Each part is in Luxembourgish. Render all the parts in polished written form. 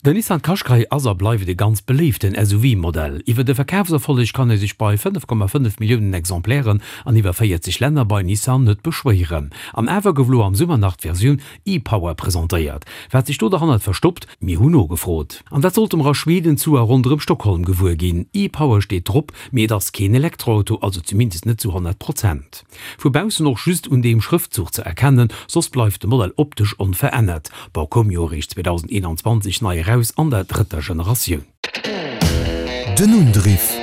Den Nissan Qashqai ass a bleift e ganz beléiften SUV-Modell. Iwwer de Verkafserfolleg kann ee sech bei 5,5 Milliounen Exemplairen an iwwer 40 Länner bei Nissan net beschwéieren. An awer gouf lo am Summer nach d'Versioun e-Power presentéiert. Wat sech do derhannert verstoppt? Mir hunn nogefrot. An dat sollte mer a Schweden zu a ronderëm Stockholm gewuer ginn. E-Power steet drop, mee et ass keen Elektroauto, also zumindest net zu 100 Prozent. Vu baussen och just un deem Schrëftzuch ze erkennen, soss bleift de Modell optesch onverännert. Bon, koum jo eréischt 2021 nei eraus an der drëtter Generatioun. Den Undriff.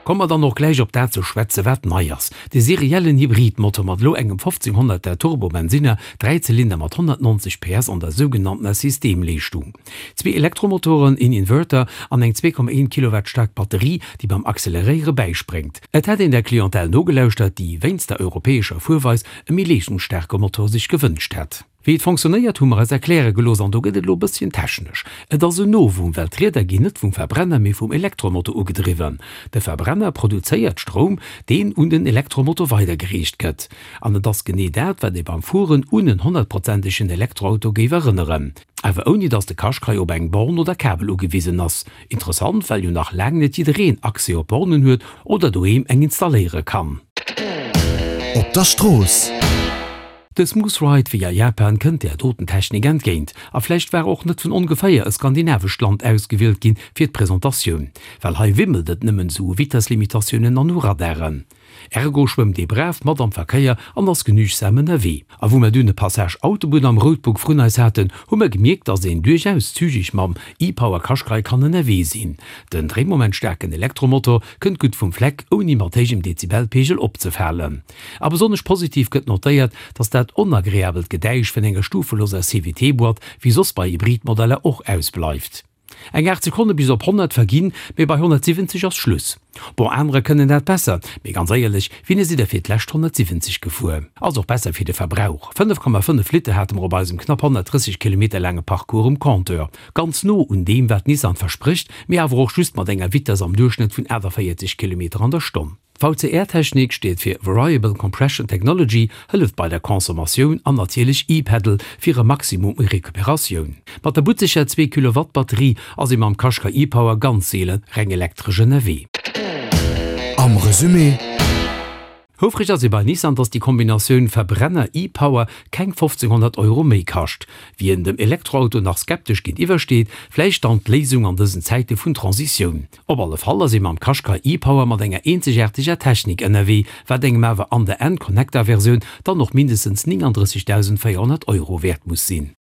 Komme mer dann och gläich op dat ze schwätze wat nei ass, de seriellen Hybridmotor mat elo engem 1500er Turbo-Bensinner, Dräizylinder mat 190 PS an der sougenanntener Systemleeschtung. Zwee Elektromotoren, een Inverter an eng 2,1 Kilowatt staark Batterie, déi beim Acceleréiere bäispréngt. Et hätt een der Clientèle nogelauschtert, déi wéinst der europäescher Fuerweis e méi leeschtungsstaarke Motor sech gewënscht hätt. Wéi et fonctionnéiert, hu mer eis erkläre gelooss an do gëtt et elo e bësschen technesch. Et ass en Novum, well d'Rieder ginn net vum Verbrenner, mee vum Elektromotor ugedriwwen. De Verbrenner produzéiert Stroum, deen un den Elektromotor weidergereecht gëtt. An et ass genee dat, wat ee beim Fueren un en honnertprozentegen Elektroauto géif erënneren. Awer ouni dass de Qashqai op eng Born oder Kabel ugewisen ass. Interessant, well jo nach laang net jiddereen Accès op Bornen huet oder doheem eng installéiere kann. Op der Strooss. De Smooth Ride wéi a Japan kënnt där doten Technik entgéint. A vläicht war och net vun ongeféier e skandinavescht Land ausgewielt ginn fir d'Presentatioun, well hei wimmelt et nëmmen esou u Vitesslimitatiounen an u Radaren. Ergo schwëmmt ee brav mat am Verkéier an ass genügsam ënnerwee. A wou mer dunn e Passage Autobunn am Roadbook vrun eis haten, hu mer gemierkt, dass een duerchaus zügeg mam e-Power Qashqai kann ënnerwee sinn. Den dréimomentstaarken Elektromotor kënnt gutt vum Fleck, ouni mat héijem Dezibelpegel opzefalen. A besonnesch positiv gëtt notéiert, dass dat onagreabelt Gedäisch vun enger stufeloser CVT-Boîte wéi soss bei Hybridmodeller och ausbleift. Eng 8 Sekonne bis op 100 verginn, mee bei 170 ass Schluss. Bon, anerer kënnen dat besser, mee ganz éierlech, wéini sidd der fir d'lescht 170 gefuer? Ass och besser fir de Verbrauch, 5,5 Liter hate mer op eisem knapp 130 Kilometer laange Parcours um Compteur. Ganz no un deem, wat Nissan versprécht, mee awer och just mat enger Vitess am Duerchschnëtt vun 48 Kilometer an der Stonn. D'VCR-Technik, steet fir Variable Compression Technology, hëlleft bei der Consommatioun an natierlech E-Pedal fir e Maximum u Recuperatioun. Mat der butzeger 2 Kilowatt Batterie ass ee mam Qashqai e-Power ganz seele reng elektresch ënnerwee. Am Resumé. Houfreg ass ee bei Nissan, dass déi Kombinatioun Verbrenner-E-Power keng 1500 Euro méi kascht. Wien dem Elektroauto nach skeptesch géintiwwer steet, vläicht dann d'Léisung an dësen Zäite vun Transitioun. Op alle Fall ass ee mam Qashqai e-Power mat enger eenzegaarteger Technik ënnerwee, wat engem awer an der N-Connecta-Versioun dann och mindestens 39.400 Euro wäert muss sinn.